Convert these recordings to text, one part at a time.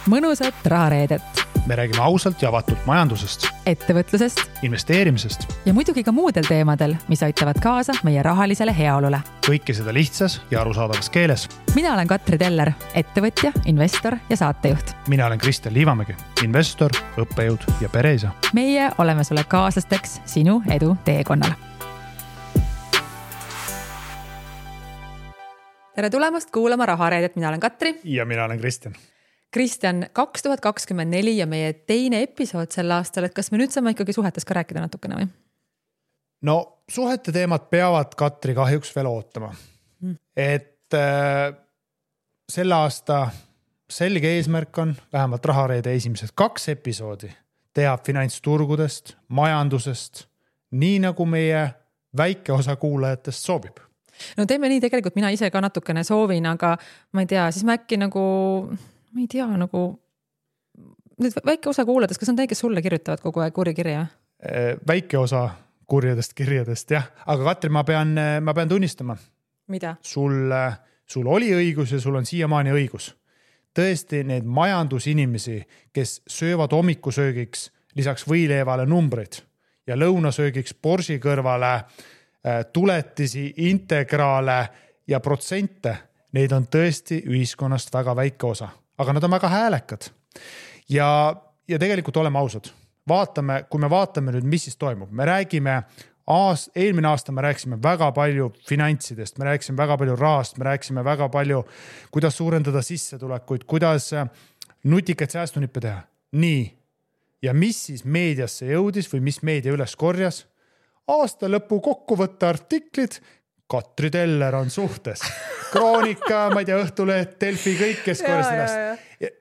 mõnusat rahareedet. Me räägime ausalt ja avatult majandusest, ettevõtlusest investeerimisest ja muidugi ka muudel teemadel, mis aitavad kaasa meie rahalisele heaolule. kõike seda lihtsas ja arusaadavas keeles. Mina olen Katri Teller, ettevõtja, investor ja saatejuht. Mina olen Kristjan Liivamägi, investor, õppejõud ja pereisa. Meie oleme sulle kaaslasteks sinu edu teekonnal. Tere tulemast kuulama rahareedet, mina olen Katri. Ja mina olen Kristjan. Kristjan, 2024 ja meie teine episood sel aastal, et kas me nüüd saame ikkagi suhetes ka rääkida natukene või? No suhete teemad peavad Katri kahjuks veel ootama. Et selle aasta selge eesmärk on vähemalt rahareede esimesed 2 episoodi teha finantsturgudest, majandusest, nii nagu meie väike osa kuulajatest soovib. No teeme nii, tegelikult mina ise ka natukene soovin, aga ma ei tea, siis ma äkki nüüd väike osa kuulades, kas on teie, kes sulle kirjutavad kogu aeg kurikirja? Väike osa kurjadest kirjadest, jah. Aga Katri, ma pean tunnistama. Mida? Sul oli õigus ja sul on siiamaani õigus. Tõesti, need majandusinimesi, kes söövad hommikusöögiks lisaks võileevale numbreid ja lõunasöögiks borsi kõrvale tuletisi, integraale ja protsente, neid on tõesti ühiskonnast väga väike osa. Aga nad on väga häälekad. Ja tegelikult oleme ausad. Kui me vaatame nüüd, mis siis toimub. Me räägime, eelmine aasta me rääksime väga palju finantsidest, me rääksime väga palju rahast, me rääksime väga palju, kuidas suurendada sissetulekuid, kuidas nutikaid säästunippe teha. Nii. Ja mis siis meediasse jõudis või mis meedia üles korjas? Aasta lõpu kokkuvõtte artiklid, Katri Teller on suhtes. Kroonika, ma ei tea, Õhtuleht, Delfi, kõik, kes korjas ennast.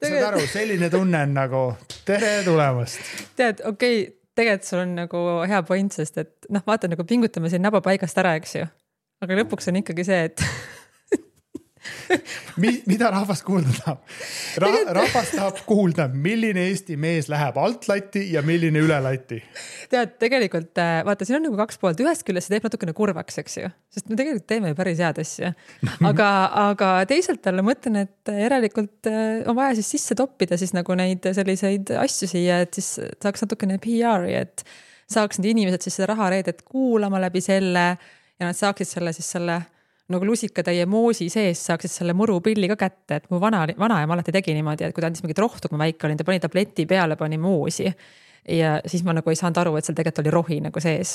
Saad aru, selline tunne on nagu tere tulemast. Tead, okei, tegelikult sul on nagu hea point, sest et vaata nagu pingutame siin naba paigast ära, eks ju. Aga lõpuks on ikkagi see, et mida rahvas kuulda tahab? Rahvas tahab kuulda, milline Eesti mees läheb alt lati ja milline üle lati. Tead, tegelikult, vaata, siin on nagu 2 poolt. Ühest küljest see teeb natukene kurvaks, eks ju. Sest me tegelikult teeme päris head asja. Aga teisalt talle mõtlen, et järelikult on vaja siis sisse toppida siis nagu neid selliseid asju siia, et siis saaks natukene PR-i, et saaks need inimesed siis seda rahareedet kuulama läbi selle ja nad saaksid selle nagu lusikatäie moosi sees saaksid selle murupilli ka kätte, et mu vanaema alati tegi niimoodi, et kui ta andis mingit rohtu, kui ma väike olin, ta pani tableti peale, pani moosi ja siis ma nagu ei saanud aru, et seal tegelikult oli rohi nagu sees.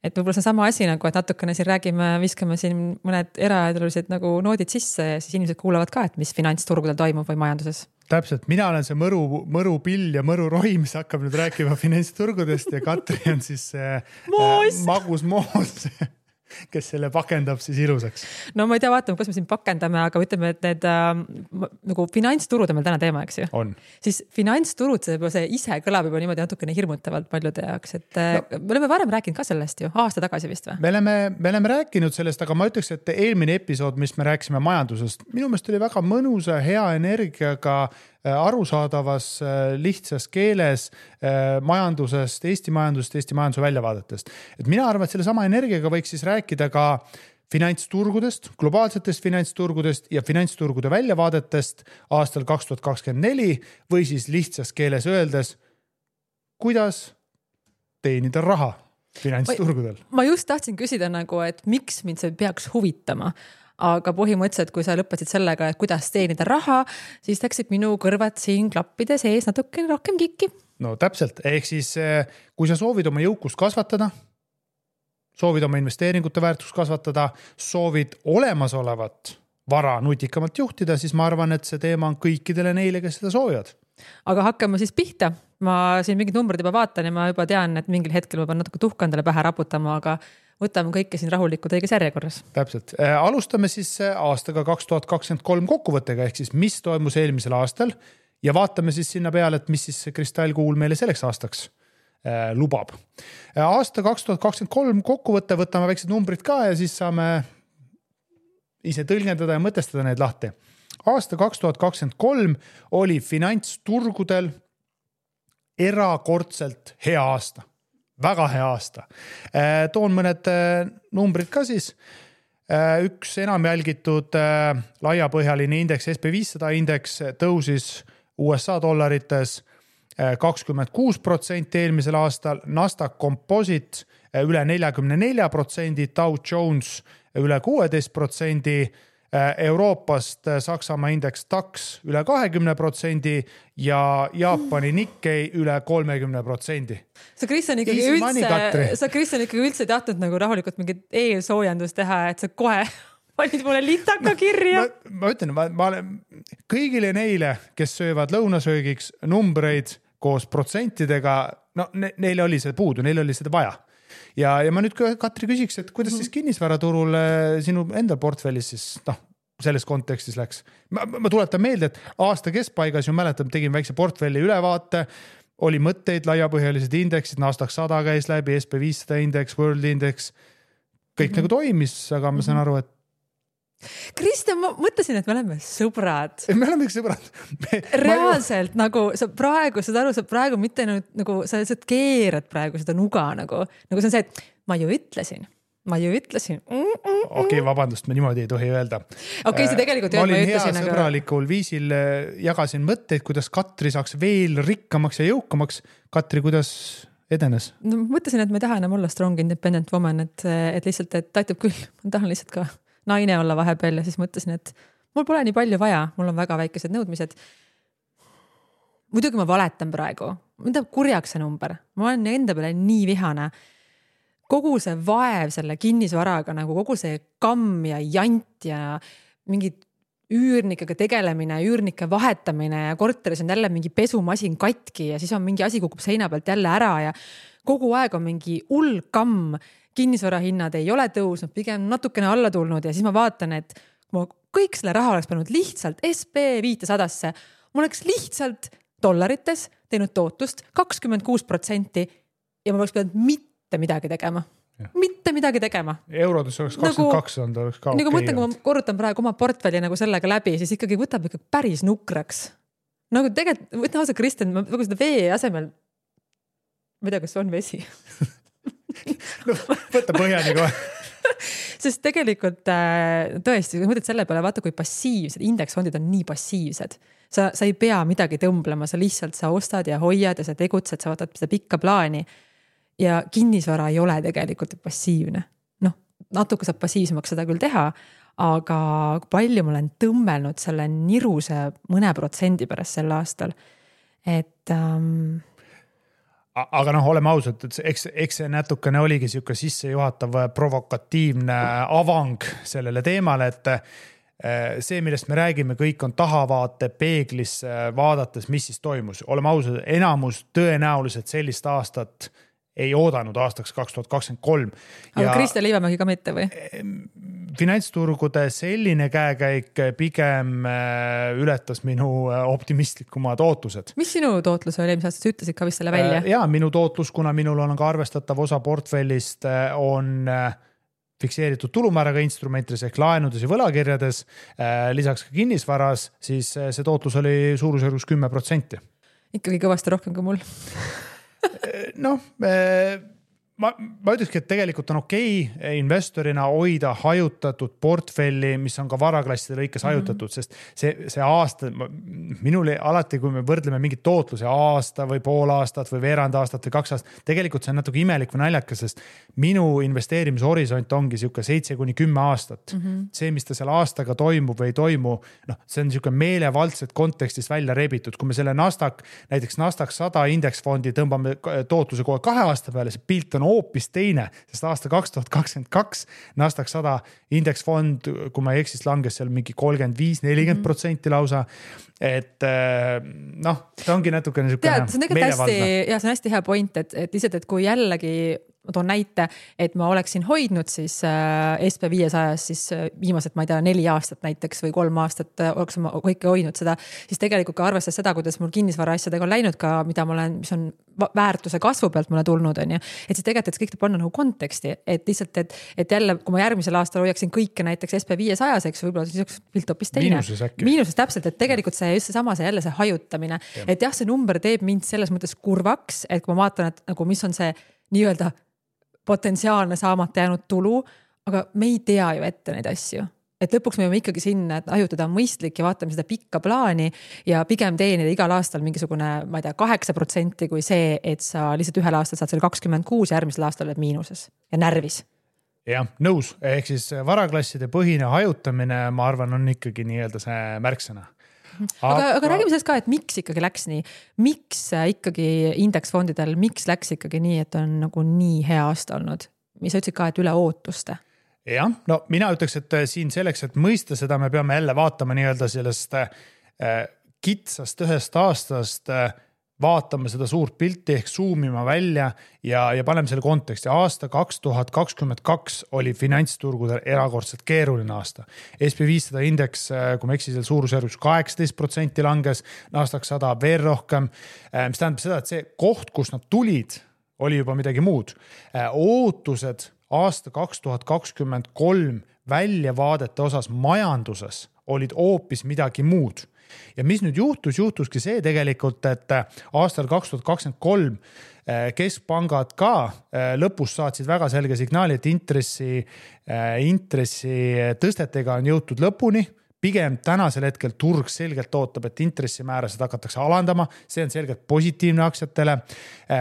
Et võib-olla see on sama asi nagu, et natukene siin räägime, viskame siin mõned eraedulised nagu noodid sisse ja siis inimesed kuulavad ka, et mis finantsturgudel toimub või majanduses. Täpselt, mina olen see mõrupill ja mõrurohi, mis hakkab nüüd rääkima finantsturgudest ja Katri on siis magus moos, kes selle pakendab siis ilusaks. No ma ei tea, vaatame, kas me siin pakendame, aga ütleme, et need nagu finantsturud on meil täna teema, eks ju? On. Siis finantsturud, see ise kõlab juba niimoodi natukene hirmutavalt paljude jaoks, et me oleme varem rääkinud ka sellest ju, aasta tagasi vist või? Me oleme rääkinud sellest, aga ma ütleks, et eelmine episood, mis me rääkisime majandusest, minu meelest oli väga mõnusa, hea energiaga arusaadavas, lihtsas keeles majandusest, Eesti majanduse väljavaadetest. Et mina arvan, et selle sama energiaga võiks siis rääkida ka finantsturgudest, globaalsetest finantsturgudest ja finantsturgude väljavaadetest aastal 2024 või siis lihtsas keeles öeldes, kuidas teenida raha finantsturgudel. Ma just tahtsin küsida nagu, et miks mind see peaks huvitama? Aga põhimõtteliselt, kui sa lõpetasid sellega, et kuidas teenida raha, siis läksid minu kõrvad siin klappide sees natukene rohkem kikki. No täpselt, ehk siis kui sa soovid oma jõukust kasvatada, soovid oma investeeringute väärtust kasvatada, soovid olemasolevat vara nutikamalt juhtida, siis ma arvan, et see teema on kõikidele neile, kes seda soovivad. Aga hakkame siis pihta. Ma siin mingid numbrid juba vaatan ja ma juba tean, et mingil hetkel ma pean natuke tuhkandele pähe raputama, aga võtame kõike siin rahulikult õiges järjekorras. Täpselt. Alustame siis aastaga 2023 kokkuvõttega, ehk siis mis toimus eelmisel aastal ja vaatame siis sinna peale, et mis siis kristallkuul meile selleks aastaks lubab. Aasta 2023 kokkuvõtte võtame väiksed numbrid ka ja siis saame ise tõlgendada ja mõtestada need lahti. Aasta 2023 oli finantsturgudel erakordselt hea aasta. Väga hea aasta. Toon mõned numbrid ka siis. Üks enam jälgitud laiapõhjaline indeks, SP500 indeks tõusis USA dollarites 26% eelmisel aastal, Nasdaq Composite üle 44%, Dow Jones üle 16%, Euroopast Saksamaa indeks DAX üle 20% ja Jaapani Nikkei üle 30%. Sa Kristjan ikkagi üldse tahtnud nagu rahulikult mingit eelsoojendust teha, et sa kohe panid mulle litaka kirja. Ma ütlen, ma olen kõigile neile, kes söövad lõunasöögiks numbreid koos protsentidega, no neil oli see puudu, neil oli seda vaja. Ja ma nüüd Katri küsiks, et kuidas siis kinnisvaraturul sinu enda portfellis siis selles kontekstis läks? Ma tuletan meelde, et aasta keskpaigas ju mäletan, tegin väikse portfelli ülevaate, oli mõtteid, laiapõhjalised indeksid, Nasdaq 100 käis läbi, SP500 indeks, World Index, kõik nagu toimis, aga ma saan aru, et Kristjan, ma mõtlesin, et me oleme sõbrad. Me oleme sõbrad. Reaalselt nagu sa praegu, saad aru, sa praegu mitte nagu sa keerad praegu seda nuga nagu see on see, et ma ju ütlesin. Okei, vabandust, me niimoodi ei tohi öelda. Okei, see tegelikult ma olin hea sõbralikul viisil, jagasin mõtteid, kuidas Katri saaks veel rikkamaks ja jõukamaks. Katri, kuidas edenes? No, mõtlesin, et ma ei taha enam olla strong independent woman, et lihtsalt, et aitab küll. Ma tahan lihtsalt ka naine olla vahepeal ja siis mõtlesin, et mul pole nii palju vaja, mul on väga väikesed nõudmised. Muidugi ma valetan praegu, mida kurjaks see number, ma olen enda peale nii vihane. Kogu see vaev selle kinnisvaraga, nagu kogu see kamm ja jant ja mingid üürnikega tegelemine, üürnike vahetamine ja korteris on jälle mingi pesumasin katki ja siis on mingi asi kukub seina pealt jälle ära ja kogu aeg on mingi hull kamm. Kinnisvarahinnad ei ole tõusnud, pigem natukene alla tulnud ja siis ma vaatan, et ma kõik selle raha oleks pannud lihtsalt SP500-sse. Ma oleks lihtsalt dollarites teinud tootust 26% ja ma oleks pidanud mitte midagi tegema. Ja. Mitte midagi tegema. Eurodes oleks 22 on, oleks ka nagu mõtlen, kui ma korrutan praegu oma portfelli nagu sellega läbi, siis ikkagi võtab ikka päris nukraks. Nagu tegelikult, võtna osa Kristjan, ma seda vee asemel, ma ei tea, kas on vesi. No, võtta põhjani kohe. Sest tegelikult tõesti, kui mõtled selle peale, vaata kui passiivsed, indeksfondid on nii passiivsed. Sa ei pea midagi tõmblema, sa lihtsalt sa ostad ja hoiad ja sa tegutsed, sa vaatad seda pikka plaani. Ja kinnisvara ei ole tegelikult passiivne. Natuke saab passiivsemaks seda küll teha, aga palju ma olen tõmmelnud selle niruse mõne protsendi pärast sel aastal. Et aga oleme ausad, et eks see natukene oligi siuke sissejuhatav provokatiivne avang sellele teemale, et see, millest me räägime, kõik on tahavaate peeglis vaadates, mis siis toimus. Oleme ausad, enamus tõenäoliselt sellist aastat ei oodanud aastaks 2023. Aga Kristjan Liivamägi ka mitte või? Finantsturgude selline käekäik pigem ületas minu optimistlikumad ootused. Mis sinu tootlus oli, mis sa ütlesid ka vist selle välja? Jaa, minu tootlus, kuna minul on ka arvestatav osa portfellist, on fikseeritud tulumääraga instrumentides ehk laenudes ja võlakirjades, lisaks ka kinnisvaras, siis see tootlus oli suurusjärgus 10%. Ikkagi kõvasti rohkem kui mul. Ma ütlekski, et tegelikult on okei investorina hoida hajutatud portfelli, mis on ka varaklasside lõikes hajutatud, sest see aasta, minule alati, kui me võrdleme mingit tootluse aasta või pool aastat või veerand aastat või 2 aastat, tegelikult see on natuke imelik või naljakas, sest minu investeerimishorisont ongi siuke 7-10 aastat. See, mis ta seal aastaga toimub või ei toimu, see on siuke meelevaldselt kontekstist välja rebitud. Kui me selle näiteks Nasdaq 100 indeksfondi tõmbame tootluse kohe 2 aasta peale, see pilt on hoopis teine, sest aasta 2022 Nasdaq 100 indeksfond, kui ma ei eksis, langes seal mingi 35-40% lausa. Et see ongi natukene meelevaldne. See on hästi hea point, et lihtsalt, et kui jällegi ma toon näite, et ma oleksin hoidnud siis SP500 siis viimased, ma ei tea, 4 aastat näiteks või 3 aastat oleks ma kõike hoidnud seda, siis tegelikult ka arvestades seda, kuidas mul kinnisvara asjadega on läinud ka, mis on väärtuse kasvu pealt mulle tulnud, on ju. Et siis tegelikult, et kõik panna nagu konteksti, et lihtsalt, et jälle, kui ma järgmisel aastal hoiaksin kõike näiteks SP500, eks võib-olla siis oleks pilt hoopis teine. Miinuses täpselt, et tegelikult see just seesama, see jälle see hajutamine. Et jah, see number teeb mind selles mõttes kurvaks, et kui ma vaatan, et nagu mis on see nii-öelda potentsiaalne saamata jäänud tulu, aga me ei tea ju ette neid asju. et lõpuks me võime ikkagi sinna, et ajutada on mõistlik ja vaatame seda pikka plaani ja pigem teenida igal aastal mingisugune, ma ei tea, 8% kui see, et sa lihtsalt ühel aastal saad selle 26 ja järgmisel aastal oled miinuses ja närvis. Jah, nõus. Ehk siis varaklasside põhine hajutamine, ma arvan, on ikkagi nii-öelda see märksõna. Aga räägime sellest ka, et miks ikkagi läks nii? Miks ikkagi indeksfondidel, miks läks ikkagi nii, et on nagu nii hea aasta olnud? Mis sa ütlesid ka, et üle ootuste? Jah, no mina ütleks, et siin selleks, et mõista seda, me peame jälle vaatama nii-öelda sellest kitsast ühest aastast, vaatame seda suurt pilti ehk zoomima välja ja paneme selle konteksti. Aasta 2022 oli finantsturgudel erakordselt keeruline aasta. SP500 indeks, kui me eksisel suurusjärgus 18% langes, Nasdaq 100 veel rohkem, mis tähendab seda, et see koht, kus nad tulid, oli juba midagi muud. Ootused aasta 2023 väljavaadete osas majanduses olid hoopis midagi muud. Ja mis nüüd juhtuski see tegelikult, et aastal 2023 keskpangad ka lõpus saatsid väga selge signaali, et intressi tõstetega on jõutud lõpuni. Pigem tänasel hetkel turg selgelt ootab, et intressimäärasid hakatakse alandama. See on selgelt positiivne aktsiatele.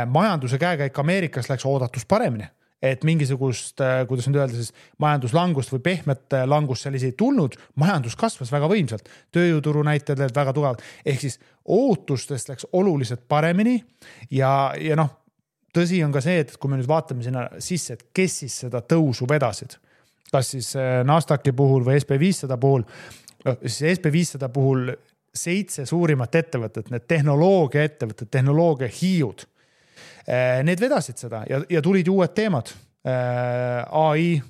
Majanduse käekäik Ameerikas läks oodatus paremini. Et mingisugust, kuidas nüüd öelda, siis majanduslangust või pehmet langust seal ei tulnud, majandus kasvas väga võimsalt, tööjõuturu näitajad olid väga tugevad, ehk siis ootustest läks oluliselt paremini ja noh, tõsi on ka see, et kui me nüüd vaatame sinna sisse, et kes siis seda tõusu vedasid, kas siis Nasdaqi puhul või SP500 puhul, siis SP500 puhul 7 suurimat ettevõtet, need tehnoloogia ettevõtted, tehnoloogia hiiud, need vedasid seda ja tulid uued teemad. AI,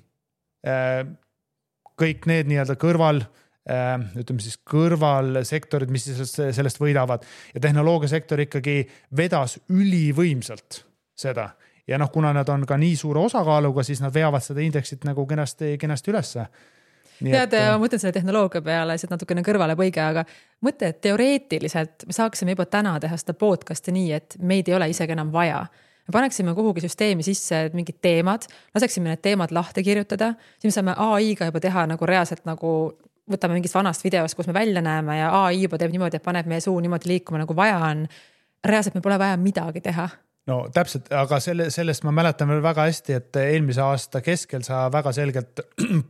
kõik need nii-öelda kõrvalsektorid, mis sellest võidavad ja tehnoloogiasektor ikkagi vedas ülivõimsalt seda. Ja noh, kuna nad on ka nii suure osakaaluga, siis nad veavad seda indeksit nagu kenasti ülesse. Tead, ma mõtlen selle tehnoloogia peale, see natukene kõrvale põige, aga mõtle, et teoreetiliselt me saaksime juba täna teha seda podcasti nii, et meid ei ole isegi enam vaja. Me paneksime kuhugi süsteemi sisse mingid teemad, laseksime need teemad lahti kirjutada, siis me saame AI-ga juba teha nagu reaalselt nagu võtame mingist vanast videost, kus me välja näeme ja AI juba teeb niimoodi, et paneb meie suu niimoodi liikuma nagu vaja on. Reaalselt me pole vaja midagi teha. No täpselt, aga sellest ma mäletan veel väga hästi, et eelmise aasta keskel sa väga selgelt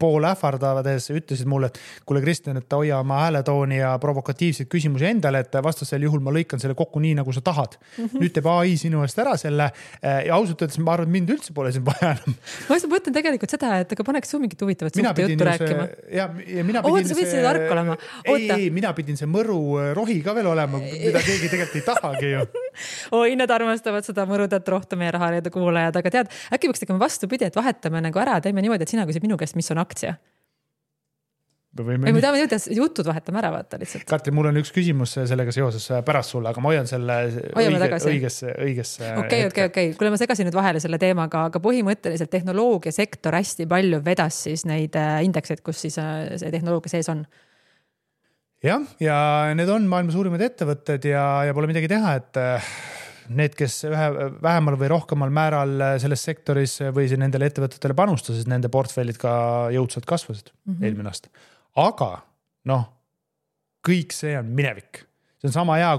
pool ähvardavades ütlesid mulle, et kuule Kristjan, et hoia oma hääletooni ja provokatiivseid küsimusi endale, et vastasel juhul ma lõikan selle kokku nii, nagu sa tahad. Nüüd teeb AI sinu eest ära selle ja ausalt öeldes ma arvan, et mind üldse pole siin vaja enam. Ma mõtlen tegelikult seda, et aga paneks su mingit huvitavat suhte juttu rääkima. Ja mina pidin sa võtsid tark olema. Ei, mina pidin see mõru rohi ka veel olema, mida keegi tegelikult ei tahagi ju. Oi, nad armastavad seda mõrudat rohtu meie rahareede kuulajad, aga tead, äkki võiks tegema vastupidi, et vahetame nagu ära, teeme niimoodi, et sina küsid minu käest, mis on aktsia. Või me tahame jutud vahetame ära, vaata lihtsalt. Katri, mul on üks küsimus sellega seoses pärast sulle, aga ma hoian selle õigesse. Okei. Kuule, ma segasin nüüd vahele selle teemaga, aga põhimõtteliselt tehnoloogiasektor hästi palju vedas siis neid indekseid, kus siis see tehnoloogia sees on. Ja need on maailma suurimad ettevõtted ja pole midagi teha, et need, kes vähemal või rohkemal määral selles sektoris või nendele ettevõtetele panustasid, nende portfellid ka jõudsalt kasvasid eelmine aasta. Aga kõik see on minevik. See on sama hea,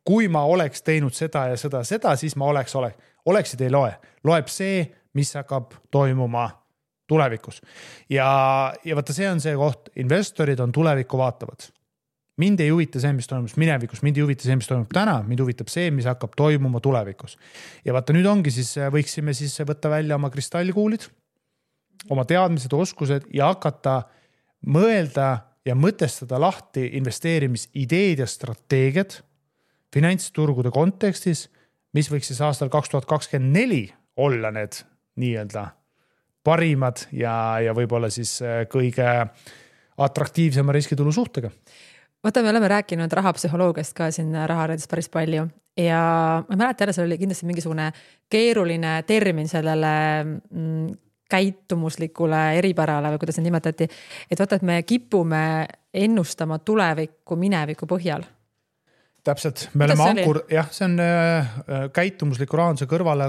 kui ma oleks teinud seda ja seda, siis ma oleksid ei loe. Loeb see, mis hakkab toimuma tulevikus. Ja vaata, see on see koht, investorid on tulevikku vaatavad. Mind ei huvita see, mis toimus minevikus, mind ei huvita see, mis toimub täna, mind huvitab see, mis hakkab toimuma tulevikus. Ja vaata, nüüd ongi siis, võiksime siis võtta välja oma kristallkuulid, oma teadmised, oskused ja hakata mõelda ja mõtestada lahti investeerimisideed ja strateegiad finantsturgude kontekstis, mis võiks siis aastal 2024 olla need nii-öelda parimad ja võib-olla siis kõige atraktiivsema riskitulu suhtega. Vaata, me oleme rääkinud rahapsühholoogiast ka siin rahareedes päris palju ja ma mäleta jälle, see oli kindlasti mingisugune keeruline termin sellele käitumuslikule eripärale või kuidas see nimetati, et vaata, et me kipume ennustama tulevikku mineviku põhjal. Täpselt, me oleme see on käitumusliku rahanduse kõrvale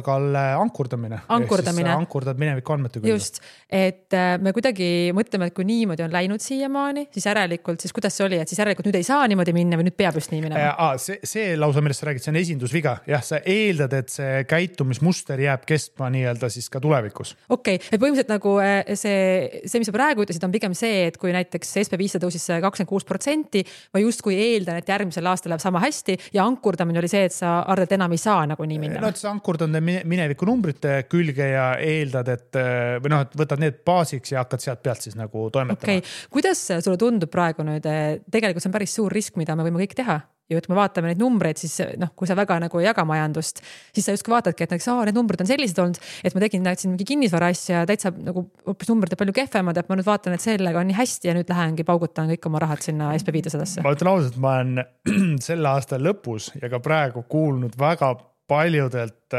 ankurdamine. Ankurdad mineviku andmete küll. Just, et me kuidagi mõtleme, et kui niimoodi on läinud siiamaani, siis järelikult, siis kuidas see oli, et siis järelikult nüüd ei saa niimoodi minna või nüüd peab just nii minema? See lausa, millest sa räägid, see on esindusviga. Jah, sa eeldad, et see käitumismuster jääb kestma nii-öelda siis ka tulevikus. Okei, et põhimõtteliselt nagu see, mis sa praegu ütlesid, on pigem see, et kui näiteks SP500 tõusis 26%, ma justkui eeldan, et järgmisel aastal läheb sama hästi ja ankurdamine oli see, et sa arvad, et enam ei saa nagu nii minna. No, et sa ankurdad mineviku numbrite külge ja eeldad, et võtad need baasiks ja hakkad sealt pealt siis nagu toimetama. Okay. Kuidas sulle tundub praegu nüüd? Tegelikult see on päris suur risk, mida me võime kõik teha. Ja kui me vaatame neid numbreid, siis kui sa väga nagu ei jaga majandust, siis sa justkui vaatadki, et need numbrid on sellised olnud, et ma tegin siin mingi kinnisvara asja täitsa nagu hoopis numbrid palju kehvemad, et ma nüüd vaatan, et sellega on nii hästi ja nüüd lähengi paugutan kõik oma rahad sinna SP500-sse. Ma ütlen ausalt, ma olen selle aasta lõpus ja ka praegu kuulnud väga paljudelt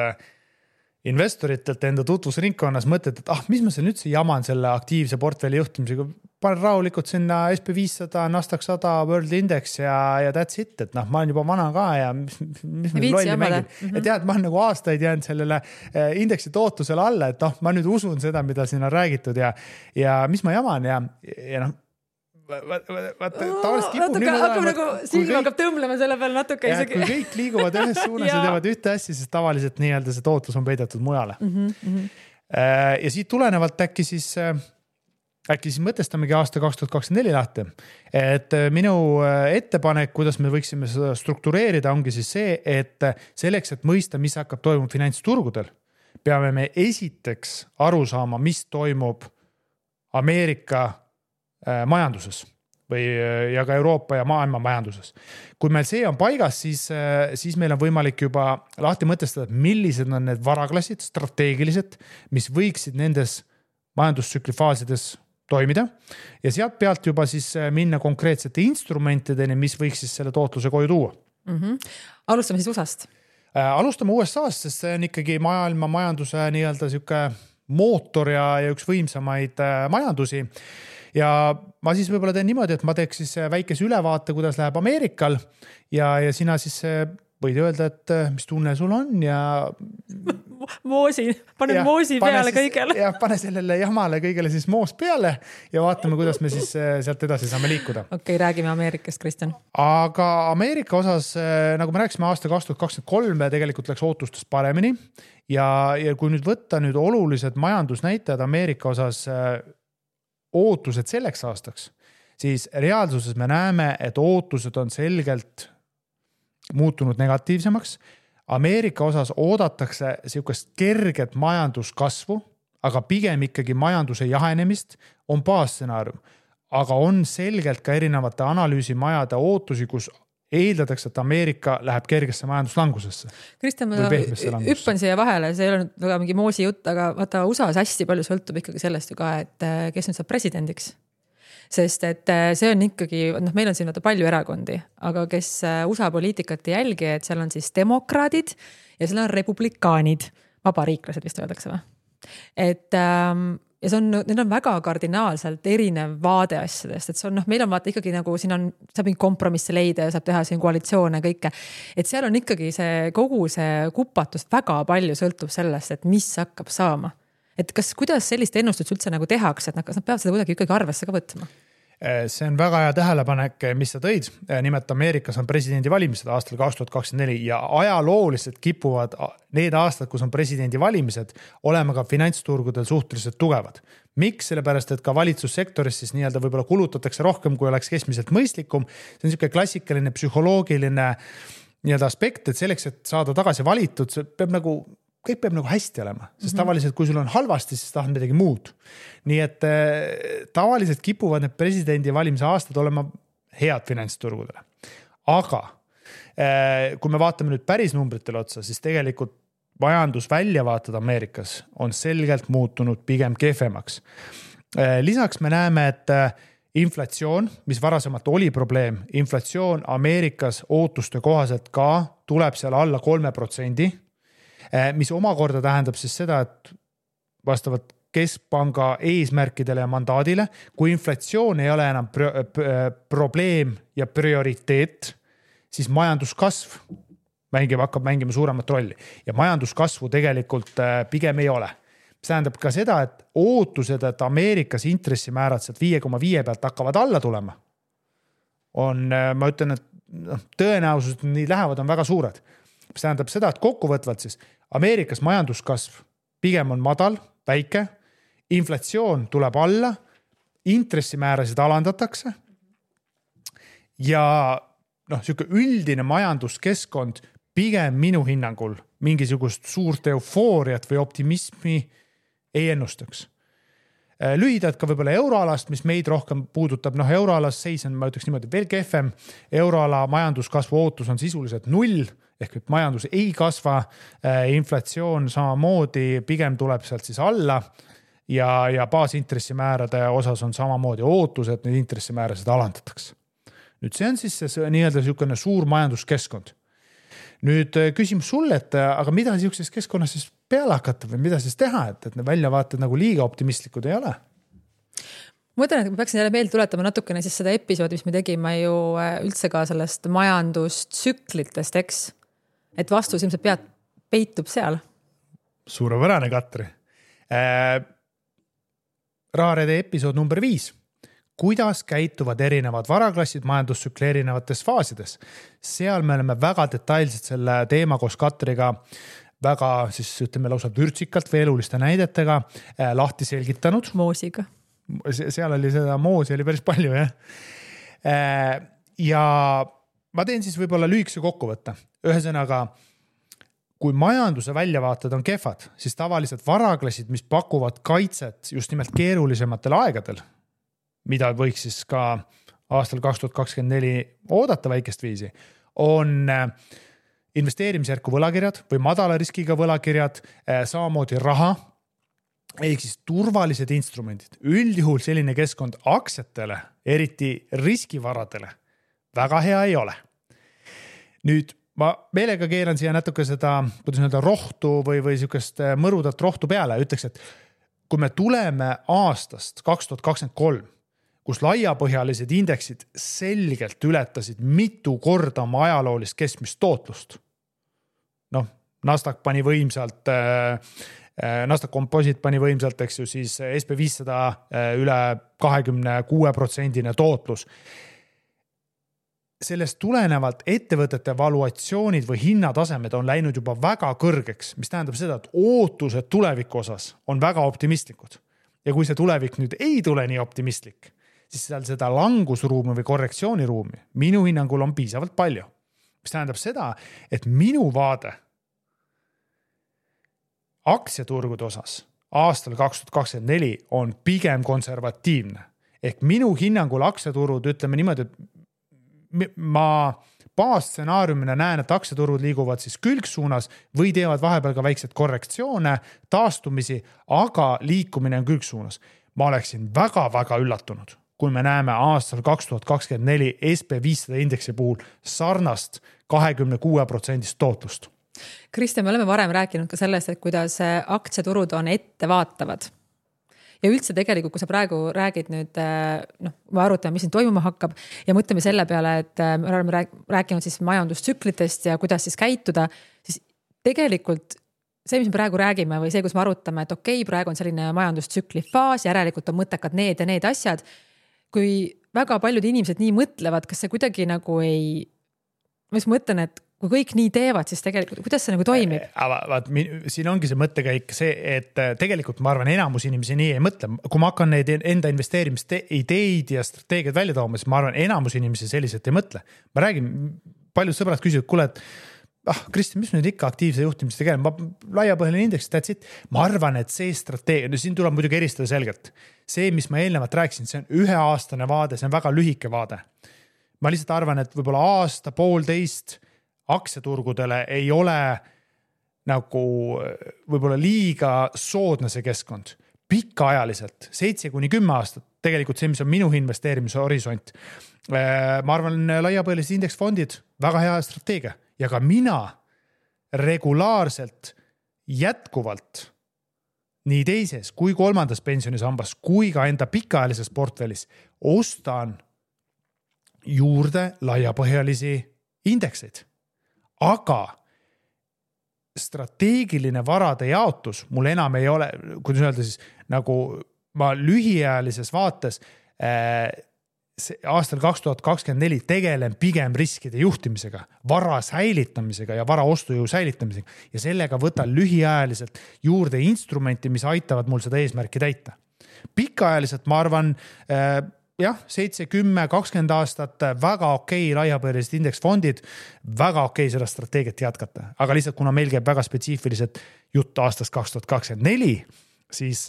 investoritelt enda tutvusringkonnas mõtted, et mis ma seal üldse jaman selle aktiivse portfelli juhtimisega, panen rahulikult sinna SP500, Nasdaq 100, World Index ja that's it, et ma olen juba vana ka ja mis lolli mängin. Et jah, et ma olen nagu aastaid jäänud sellele indeksi tootlusele alla, et ma nüüd usun seda, mida siin on räägitud ja mis ma jaman ja silm hakkab tõmblema selle peal natuke isegi. Kui kõik liiguvad ühes suunas ja teevad ühte asja, siis tavaliselt nii-öelda see tootlus on peidetud mujale. Ja siit tulenevalt äkki siis mõtestamegi aasta 2024 lahti. Et minu ettepanek, kuidas me võiksime seda struktureerida, ongi siis see, et selleks, et mõista, mis hakkab toimuma finantsturgudel, peame me esiteks aru saama, mis toimub Ameerika majanduses ja ka Euroopa ja maailma majanduses. Kui meil see on paigas, siis meil on võimalik juba lahti mõtestada, millised on need varaklassid, strateegilised, mis võiksid nendes majandustsüklifaasides toimida ja sealt pealt juba siis minna konkreetsete instrumentideni, mis võiks siis selle tootluse koju tuua. Alustame siis USA-st. Alustame USA-st, sest see on ikkagi maailma majanduse nii-öelda siuke mootor ja üks võimsamaid majandusi. Ja ma siis võib-olla teen niimoodi, et ma teeks siis väikese ülevaate, kuidas läheb Ameerikal ja sina siis võid öelda, et mis tunne sul on ja moosi peale kõigele. Ja pane sellele jamale kõigele siis moos peale ja vaatame, kuidas me siis sealt edasi saame liikuda. Okei, räägime Ameerikast, Kristjan. Aga Ameerika osas, nagu me rääkisime aasta 2023, tegelikult läks ootustest paremini ja kui nüüd võtta nüüd olulised majandusnäitajad Ameerika osas ootused selleks aastaks, siis reaalsuses me näeme, et ootused on selgelt muutunud negatiivsemaks. Ameerika osas oodatakse siukest kerget majanduskasvu, aga pigem ikkagi majanduse jahenemist on baasstsenaarium. Aga on selgelt ka erinevate analüüsimajade ootusi, kus eeldatakse, et Ameerika läheb kergesse majanduslangusesse. Kristjan, ma hüppan siia vahele, see ei ole väga mingi moosi jutt, aga vaata USA-s hästi palju sõltub ikkagi sellest ju ka, et kes nüüd saab presidendiks. Sest et see on ikkagi, meil on siin palju erakondi, aga kes USA poliitikat ei jälgi, et seal on siis demokraadid ja seal on republikaanid, vabariiklased vist öeldakse või? Et ja need on väga kardinaalselt erinev vaade asjadest, et see on, meil on vaata ikkagi nagu siin on, saab mingi kompromisse leida ja saab teha siin koalitsioone ja kõike. Et seal on ikkagi see kogu see kupatust väga palju sõltub sellest, et mis hakkab saama. Et kuidas sellist ennustust üldse nagu tehakse, et kas nad peavad seda kuidagi ikkagi arvesse ka võtma? See on väga hea tähelepanek, mis sa tõid. Nimelt Ameerikas on presidendivalimised aastal 2024 ja ajalooliselt kipuvad need aastad, kus on presidendivalimised, olema ka finantsturgudel suhteliselt tugevad. Miks? Sellepärast, et ka valitsussektoris siis nii-öelda võib-olla kulutatakse rohkem, kui oleks keskmiselt mõistlikum. See on niisugune klassikaline psühholoogiline nii-öelda aspekt, et selleks, et saada tagasi valitud, kõik peab nagu hästi olema, sest tavaliselt, kui sul on halvasti, siis tahad midagi muud. Nii et tavaliselt kipuvad need presidendi valimise aastad olema head finantsturgudele. Aga kui me vaatame nüüd päris numbritele otsa, siis tegelikult majandusväljavaated Ameerikas on selgelt muutunud pigem kehvemaks. Lisaks me näeme, et inflatsioon, mis varasemalt oli probleem, inflatsioon Ameerikas ootuste kohaselt ka tuleb seal alla 3%, mis omakorda tähendab siis seda, et vastavalt keskpanga eesmärkidele ja mandaadile, kui inflatsioon ei ole enam probleem ja prioriteet, siis majanduskasv hakkab mängima suuremat rolli ja majanduskasvu tegelikult pigem ei ole. See tähendab ka seda, et ootused, et Ameerikas intressimäärad sealt 5,5 pealt hakkavad alla tulema, ma ütlen, et tõenäosus, et nii lähevad, on väga suured. See tähendab seda, et kokkuvõtvalt siis Ameerikas majanduskasv pigem on madal, väike, inflatsioon tuleb alla, intressimäärasid alandatakse ja siuke üldine majanduskeskkond pigem minu hinnangul mingisugust suurt eufooriat või optimismi ei ennustaks. Lühidalt ka võib-olla euroalast, mis meid rohkem puudutab, euroalas seis on, ma ütleks niimoodi, veel kehvem. Euroala majanduskasvu ootus on sisuliselt 0, ehk et majandus ei kasva, inflatsioon samamoodi pigem tuleb sealt siis alla ja baasintressimäärade osas on samamoodi ootus, et neid intressimäärasid alandatakse. Nüüd see on siis see nii-öelda niisugune suur majanduskeskkond. Nüüd küsimus sulle, et aga mida niisuguses keskkonnas siis peale hakata või mida siis teha, et need väljavaated nagu liiga optimistlikud ei ole? Ma mõtlen, et ma peaksin jälle meelde tuletama natukene siis seda episoodi, mis me tegime ju üldse ka sellest majandustsüklitest, eks? Et vastus ilmselt peitub seal. Suurepärane, Katri. Raarede episood number 5. Kuidas käituvad erinevad varaklassid majandustsükli erinevates faasides. Seal me oleme väga detailselt selle teema koos Katriga väga siis ütleme lausa vürtsikalt või eluliste näidetega lahti selgitanud. Moosiga. Seal oli seda moosi oli päris palju, jah. Ja ma teen siis võib-olla lühikese kokkuvõtte. Ühesõnaga, kui majanduse väljavaated on kehvad, siis tavaliselt varaklassid, mis pakuvad kaitset just nimelt keerulisematel aegadel, mida võiks siis ka aastal 2024 oodata väikest viisi, on investeerimisjärku võlakirjad või madala riskiga võlakirjad, samamoodi raha, ehk siis turvalised instrumendid. Üldjuhul selline keskkond aktsiatele, eriti riskivaradele, väga hea ei ole. Nüüd ma meelega keeran siia natuke seda, kuidas öelda, rohtu või niisugust mõrudat rohtu peale. Ütleks, et kui me tuleme aastast 2023, kus laiapõhjalised indeksid selgelt ületasid mitu korda oma ajaloolist keskmist tootlust. Nasdaq pani võimsalt, Nasdaq Composite pani võimsalt, eks ju, siis SP500 üle 26% tootlus. Sellest tulenevalt ettevõtete valuatsioonid või hinnatasemed on läinud juba väga kõrgeks, mis tähendab seda, et ootused tuleviku osas on väga optimistlikud. Ja kui see tulevik nüüd ei tule nii optimistlik, siis seal seda langusruumi või korrektsiooniruumi minu hinnangul on piisavalt palju. Mis tähendab seda, et minu vaade aktsiaturgude osas aastal 2024 on pigem konservatiivne. Ehk minu hinnangul aktsiaturud, ütleme niimoodi, et ma baasstsenaariumina näen, et aktsiaturud liiguvad siis külgsuunas või teevad vahepeal ka väikseid korrektsioone, taastumisi, aga liikumine on külgsuunas. Ma oleksin väga-väga üllatunud, kui me näeme aastal 2024 SP500 indeksi puhul sarnast 26% tootlust. Kristjan, me oleme varem rääkinud ka sellest, et kuidas aktsiaturud on ettevaatavad. Ja üldse tegelikult, kui sa praegu räägid nüüd, me arutame, mis siin toimuma hakkab ja mõtleme selle peale, et me oleme rääkinud siis majandustsüklitest ja kuidas siis käituda, siis tegelikult see, mis me praegu räägime või see, kus me arutame, et okei, praegu on selline majandustsükli faas, järelikult on mõttekad need ja need asjad. Kui väga paljud inimesed nii mõtlevad, kas see kuidagi nagu ei, ma just mõtlen, et kui kõik nii teevad, siis tegelikult, kuidas see nagu toimib? Siin ongi see mõttekäik see, et tegelikult ma arvan, enamus inimesi nii ei mõtle. Kui ma hakkan neid enda investeerimist ideid ja strateegiad välja tooma, siis ma arvan, enamus inimesi selliselt ei mõtle. Ma räägin, paljud sõbrad küsivad, kuule, et Kristjan, mis nüüd ikka aktiivse juhtimist tegema? Laiapõhjaline indeks, that's it. Ma arvan, et see strateegia, siin tuleb muidugi eristada selgelt. See, mis ma eelnevalt rääkisin, see on 1-aastane vaade, see on väga lühike vaade. Ma lihtsalt arvan, et võib-olla aasta, poolteist aktsiaturgudele ei ole nagu võib-olla liiga soodne see keskkond. Pikaajaliselt, 7-10 aastat, tegelikult see, mis on minu investeerimise horisont. Ma arvan, laiapõhjalised indeksfondid, väga hea strateegia. Ja ka mina regulaarselt jätkuvalt nii teises kui kolmandas pensionisambas kui ka enda pikaajalises portfellis ostan juurde laiapõhjalisi indekseid, aga strateegiline varade jaotus mul enam ei ole, kuidas öelda siis, nagu ma lühiajalises vaates aastal 2024 tegelen pigem riskide juhtimisega, vara säilitamisega ja vara ostujõu säilitamisega ja sellega võtan lühiajaliselt juurde instrumenti, mis aitavad mul seda eesmärki täita. Pikaajaliselt ma arvan, jah, 7, 10, 20 aastat väga okei laiapõhjalised indeksfondid, väga okei seda strateegiat jätkata. Aga lihtsalt kuna meil käib väga spetsiifiliselt jutt aastast 2024, siis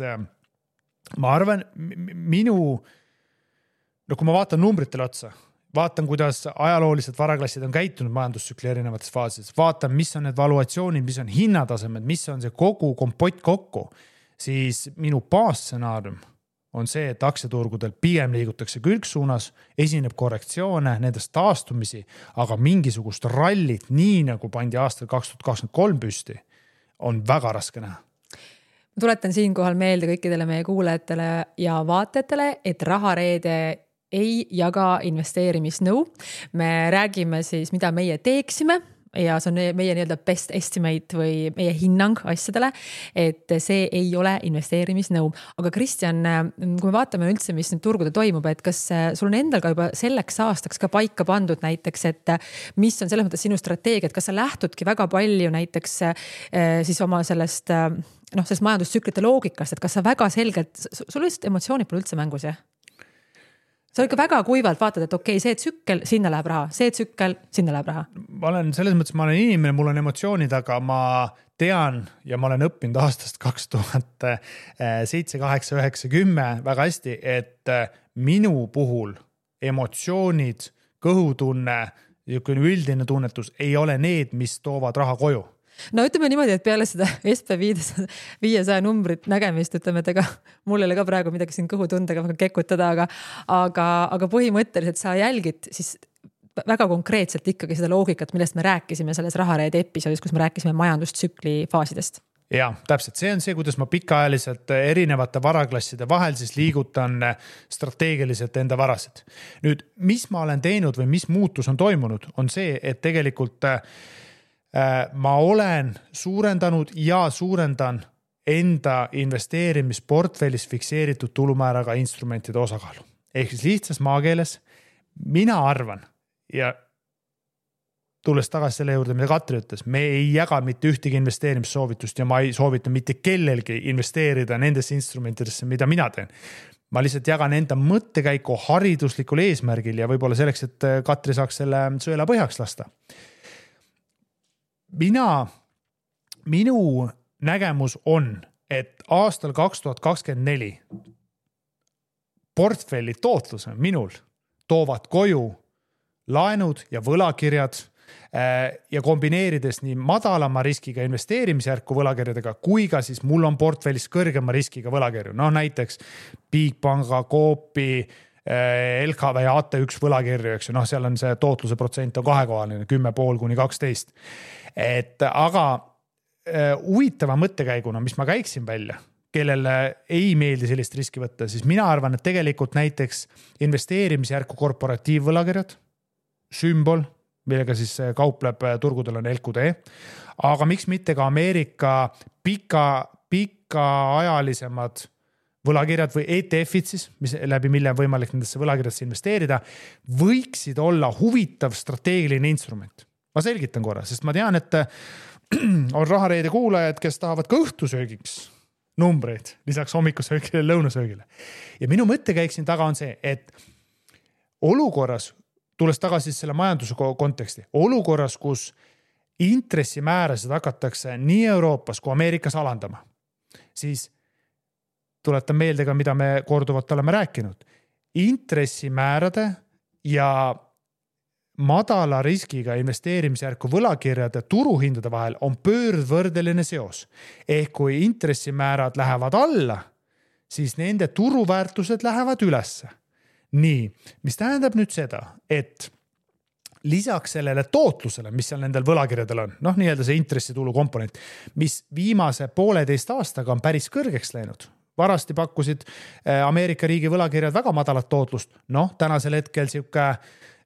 ma arvan, kui ma vaatan numbritele otsa, vaatan, kuidas ajaloolised varaklassid on käitunud majandustsükli erinevates faasides, vaatan, mis on need valuatsioonid, mis on hinnatasemed, mis on see kogu kompott kokku, siis minu baasstsenaarium on see, et aktsiaturgudel pigem liigutakse külgsuunas, esineb korrektsioone, nendest taastumisi, aga mingisugust rallit, nii nagu pandi aastal 2023 püsti, on väga raske näha. Ma tuletan siinkohal meelde kõikidele meie kuulajatele ja vaatajatele, et Rahareede ei jaga investeerimisnõu. Me räägime siis, mida meie teeksime ja see on meie nii-öelda best estimate või meie hinnang asjadele, et see ei ole investeerimisnõu. Aga Kristjan, kui me vaatame üldse, mis nüüd turgudel toimub, et kas sul on endal ka juba selleks aastaks ka paika pandud näiteks, et mis on selles mõttes sinu strateegia, et kas sa lähtudki väga palju näiteks siis oma sellest majandustsüklite loogikast, et kas sa väga selgelt, sul lihtsalt emotsioonid pole üldse mängus, jah? Sa ikka väga kuivalt vaatad, et okei, see tsükkel, sinna läheb raha, see tsükkel, sinna läheb raha. Ma olen selles mõttes, ma olen inimene, mul on emotsioonid, aga ma tean ja ma olen õppinud aastast 2007, 8, 9, 10 väga hästi, et minu puhul emotsioonid, kõhutunne, üldine tunnetus ei ole need, mis toovad raha koju. No ütleme niimoodi, et peale seda SB500 numbrit nägemist, ütleme, et ega mul ei ole ka praegu midagi siin kõhutundega väga kekutada, aga põhimõtteliselt sa jälgid siis väga konkreetselt ikkagi seda loogikat, millest me rääkisime selles Rahareede episoodis, kus me rääkisime majandustsükli faasidest. Ja, täpselt. See on see, kuidas ma pikaajaliselt erinevate varaklasside vahel siis liigutan strateegiliselt enda varasid. Nüüd, mis ma olen teinud või mis muutus on toimunud, on see, et tegelikult ma olen suurendanud ja suurendan enda investeerimisportfellis fikseeritud tulumääraga instrumentide osakaalu. Ehk siis lihtsas maakeeles mina arvan ja tulles tagasi selle juurde, mida Katri ütles, me ei jaga mitte ühtegi investeerimissoovitust ja ma ei soovita mitte kellelgi investeerida nendesse instrumentidesse, mida mina teen. Ma lihtsalt jagan enda mõttekäiku hariduslikul eesmärgil ja võib-olla selleks, et Katri saaks selle sõela põhjaks lasta. Minu nägemus on, et aastal 2024 portfelli tootlus minul toovad koju laenud ja võlakirjad ja kombineerides nii madalama riskiga investeerimisjärku võlakirjadega, kui ka siis mul on portfellis kõrgema riskiga võlakirju. No näiteks Bigpanga, Coopi, LKV ja AT1 võlakirju, eks ju, seal on see tootluse protsent on kahekohaline, 10,5 kuni 12. Aga huvitava mõttekäiguna, mis ma käiksin välja, kellele ei meeldi sellist riski võtta, siis mina arvan, et tegelikult näiteks investeerimisjärku korporatiivvõlakirjad, sümbol, millega siis kaupleb turgudel on LQD, aga miks mitte ka Ameerika pikaajalisemad võlakirjad või ETF-id siis, läbi mille on võimalik nendesse võlakirjadesse investeerida, võiksid olla huvitav strateegiline instrument. Ma selgitan korra, sest ma tean, et on Rahareede kuulajad, kes tahavad ka õhtusöögiks numbreid, lisaks hommikusöögile ja lõunasöögile. Ja minu mõttekäik siin taga on see, et olukorras, tulles tagasi selle majanduse konteksti, olukorras, kus intressimäärasid hakatakse nii Euroopas kui Ameerikas alandama, siis tuletan meelde ka, mida me korduvalt oleme rääkinud. Intressimäärade ja madala riskiga investeerimisjärku võlakirjade turuhindade vahel on pöördvõrdeline seos. Ehk kui intressimäärad lähevad alla, siis nende turuväärtused lähevad ülesse. Nii, mis tähendab nüüd seda, et lisaks sellele tootlusele, mis seal nendel võlakirjadel on, nii-öelda see intressitulu komponent, mis viimase 1,5 aastaga on päris kõrgeks läinud. Varasti pakkusid Ameerika riigi võlakirjad väga madalat tootlust. Tänasel hetkel siuke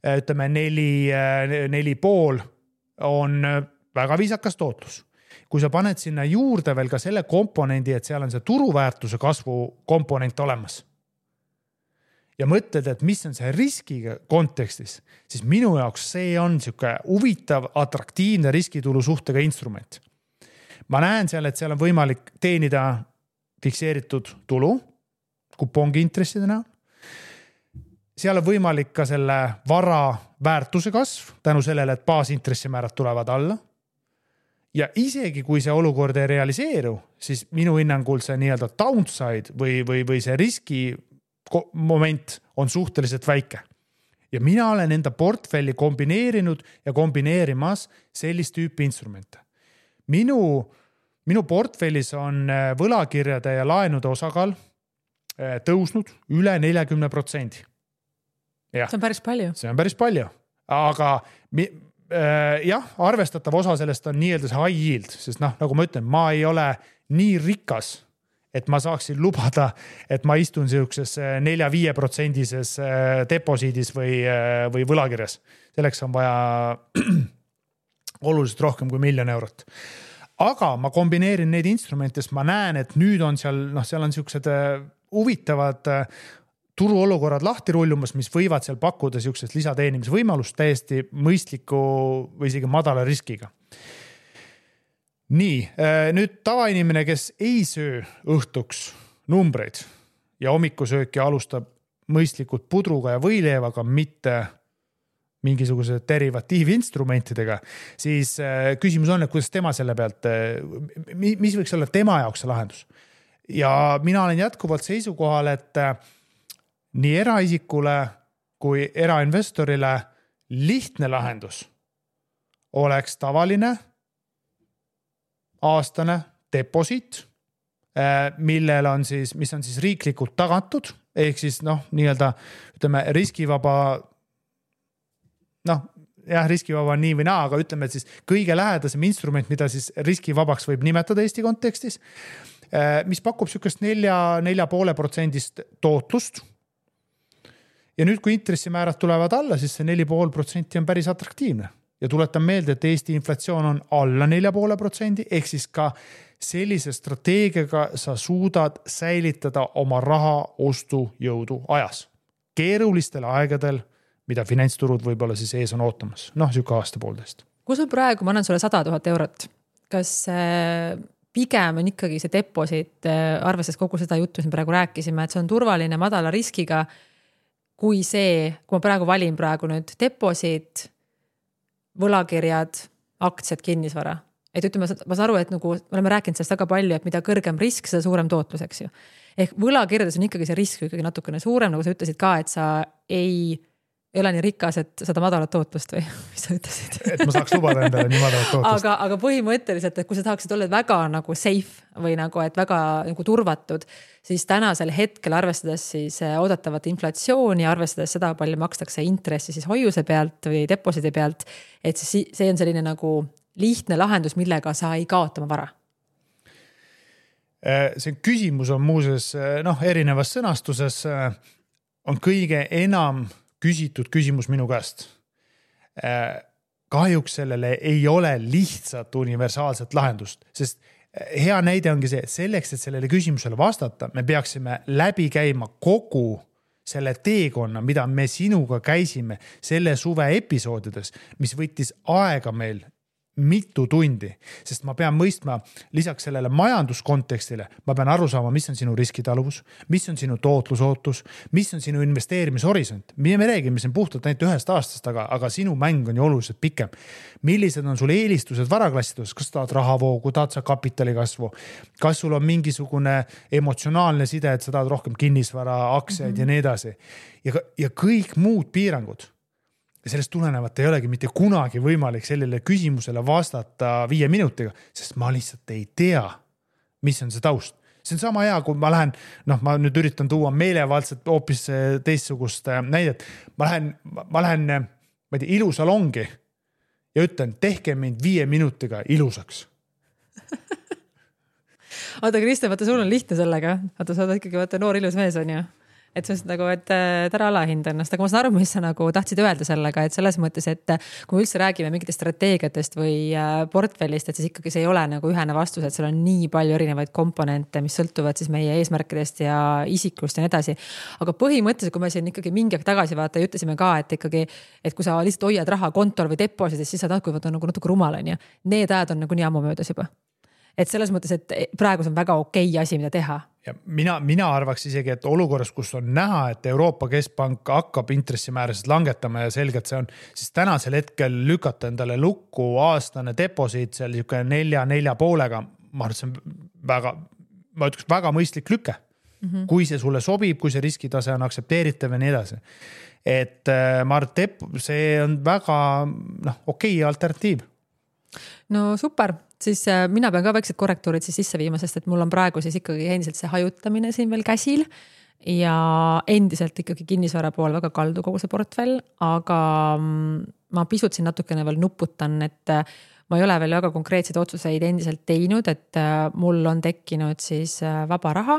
ütleme 4,5 on väga viisakas tootlus. Kui sa paned sinna juurde veel ka selle komponendi, et seal on see turuväärtuse kasvu komponent olemas ja mõtled, et mis on see riskiga kontekstis, siis minu jaoks see on siuke huvitav, atraktiivne riskitulu suhtega instrument. Ma näen seal, et seal on võimalik teenida fikseeritud tulu kupongi intresside näol. Seal on võimalik ka selle vara väärtuse kasv tänu sellele, et baasintressimäärad tulevad alla. Ja isegi kui see olukord ei realiseeru, siis minu hinnangul see nii-öelda downside või see riski moment on suhteliselt väike. Ja mina olen enda portfelli kombineerinud ja kombineerimas sellist tüüpi instrumente. Minu portfellis on võlakirjade ja laenude osakaal tõusnud üle 40%. Ja, see on päris palju. See on päris palju. Aga jah, arvestatav osa sellest on nii-öelda see high yield, sest nagu ma ütlen, ma ei ole nii rikas, et ma saaksin lubada, et ma istun siukses 4-5% deposiidis või võlakirjas. Selleks on vaja oluliselt rohkem kui 1 000 000 eurot. Aga ma kombineerin neid instrumente, sest ma näen, et nüüd on seal on siuksed huvitavad turuolukorrad lahti rullumas, mis võivad seal pakkuda siuksest lisateenimisvõimalust täiesti mõistliku või isegi madala riskiga. Nii, nüüd tavainimene, kes ei söö õhtuks numbreid ja hommikusööki alustab mõistlikult pudruga ja võileivaga, mitte mingisuguse derivatiivinstrumentidega, siis küsimus on, et kuidas tema selle pealt, mis võiks olla tema jaoks see lahendus. Ja mina olen jätkuvalt seisukohal, et nii eraisikule kui erainvestorile lihtne lahendus oleks tavaline aastane deposiit, millel on siis, mis on siis riiklikult tagatud, ehk siis nii-öelda ütleme riskivaba, riskivaba on nii või naa, aga ütleme, et siis kõige lähedasem instrument, mida siis riskivabaks võib nimetada Eesti kontekstis, mis pakub sükest 4,5% tootlust. Ja nüüd, kui intressimäärad tulevad alla, siis see 4,5% on päris atraktiivne. Ja tuletan meelde, et Eesti inflatsioon on alla 4,5%, ehk siis ka sellise strateegiaga sa suudad säilitada oma raha ostujõudu ajas. Keerulistel aegadel, mida finantsturud võib-olla siis ees on ootamas. Siuke aasta poolteist. Kui sul praegu, ma annan sulle 100 000 eurot, kas pigem on ikkagi see deposiit, arvestades kogu seda juttu, mis me praegu rääkisime, et see on turvaline madala riskiga, kui ma praegu valin nüüd deposiit, võlakirjad, aktsiad, kinnisvara. Et ütleme, ma saan aru, et nagu me oleme rääkinud sellest väga palju, et mida kõrgem risk, seda suurem tootlus, eks ju. Ehk võlakirjades on ikkagi see risk ikkagi natukene suurem, nagu sa ütlesid ka, et sa ei ole nii rikas, et seda madalat tootlust või mis sa ütlesid? Et ma saaks lubada endale nii madalat tootlust. Aga põhimõtteliselt, et kui sa tahaksid olla väga nagu safe või nagu, et väga nagu turvatud, siis tänasel hetkel arvestades siis oodatavat inflatsiooni, arvestades seda, palju makstakse intressi siis hoiuse pealt või deposidi pealt, et see on selline nagu lihtne lahendus, millega sa ei kaota oma vara. See küsimus on muuses erinevas sõnastuses on kõige enam küsitud küsimus minu käest. Kahjuks sellele ei ole lihtsat universaalset lahendust, sest hea näide ongi see, et selleks, et sellele küsimusele vastata, me peaksime läbi käima kogu selle teekonna, mida me sinuga käisime selle suve episoodides, mis võttis aega meil mitu tundi, sest ma pean mõistma lisaks sellele majanduskontekstile, ma pean aru saama, mis on sinu riskitaluvus, mis on sinu tootlusootus, mis on sinu investeerimishorisont. Me räägime siin puhtalt ainult 1 aastast, aga sinu mäng on ju oluliselt pikem. Millised on sul eelistused varaklassides, kas tahad rahavoogu, tahad sa kapitali kasvu, kas sul on mingisugune emotsionaalne side, et sa tahad rohkem kinnisvara, aktsiaid ja nii edasi. Ja kõik muud piirangud. Ja sellest tulenevalt ei olegi mitte kunagi võimalik sellele küsimusele vastata 5 minutiga, sest ma lihtsalt ei tea, mis on see taust. See on sama hea, kui ma lähen, ma nüüd üritan tuua meelevaldselt hoopis teistsugust näidet. Ma lähen ilusalongi ja ütlen, tehke mind 5 minutiga ilusaks. Oota, Kristjan, vaata, sul on lihtne sellega. Vaata, sa oled ikkagi noor ilus mees on ju. et see on nagu, et ära alahinda ennast, aga ma saan aru, mis sa nagu tahtsid öelda sellega, et selles mõttes, et kui me üldse räägime mingitest strateegiatest või portfellist, et siis ikkagi see ei ole nagu ühene vastus, et seal on nii palju erinevaid komponente, mis sõltuvad siis meie eesmärkidest ja isiklust ja nii edasi. Aga põhimõtteliselt, kui me siin ikkagi mingi aeg tagasi vaata ja ütlesime ka, et ikkagi, et kui sa lihtsalt hoiad raha kontol või depositis, siis sa tahad, nagu natuke rumal on ja need ajad on nagu nii ammu möödas juba. Et selles mõttes, et praegu see on väga okei asi, mida teha. Ja mina arvaks isegi, et olukorras, kus on näha, et Euroopa Keskpank hakkab intressimäärasid langetama ja selgelt see on, siis tänasel hetkel lükata endale lukku aastane deposiit seal 4,5-ga, ma arvan, et see on väga mõistlik lüke. Kui see sulle sobib, kui see riskitase on aktsepteeritav ja nii edasi. Et ma arvan, et see on väga okei alternatiiv. No super, siis mina pean ka väiksed korrektuurid siis sisse viima, sest et mul on praegu siis ikkagi endiselt see hajutamine siin veel käsil ja endiselt ikkagi kinnisvara pool väga kaldu kogu see portfell, aga ma pisut siin natukene veel nuputan, et ma ei ole veel väga konkreetseid otsuseid endiselt teinud, et mul on tekkinud siis vaba raha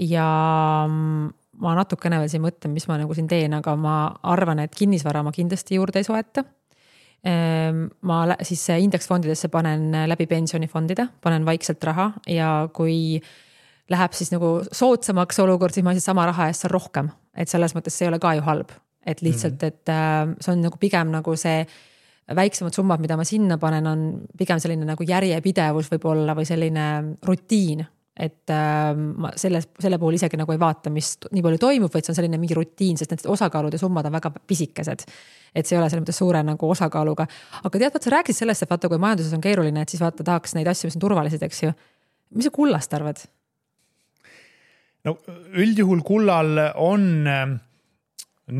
ja ma natukene veel siin mõtlen, mis ma nagu siin teen, aga ma arvan, et kinnisvara ma kindlasti juurde ei soeta. Ma siis indeksfondidesse panen läbi pensionifondide, panen vaikselt raha ja kui läheb siis nagu soodsamaks olukord, siis ma siis sama raha eest saan rohkem, et selles mõttes see ei ole ka ju halb, et lihtsalt, et see on nagu pigem nagu see väiksemad summad, mida ma sinna panen, on pigem selline nagu järjepidevus võib olla või selline rutiin, et ma selle puhul isegi nagu ei vaata, mis nii palju toimub, vaid see on selline mingi rutiin, sest need osakaalud ja summad on väga pisikesed. Et see ei ole selle mõttes suure nagu osakaaluga. Aga tead, sa rääkisid sellest, et vaata, kui majanduses on keeruline, et siis vaata tahaks neid asju, mis on turvalised, eks ju. Mis sa kullast arvad? No üldjuhul kullal on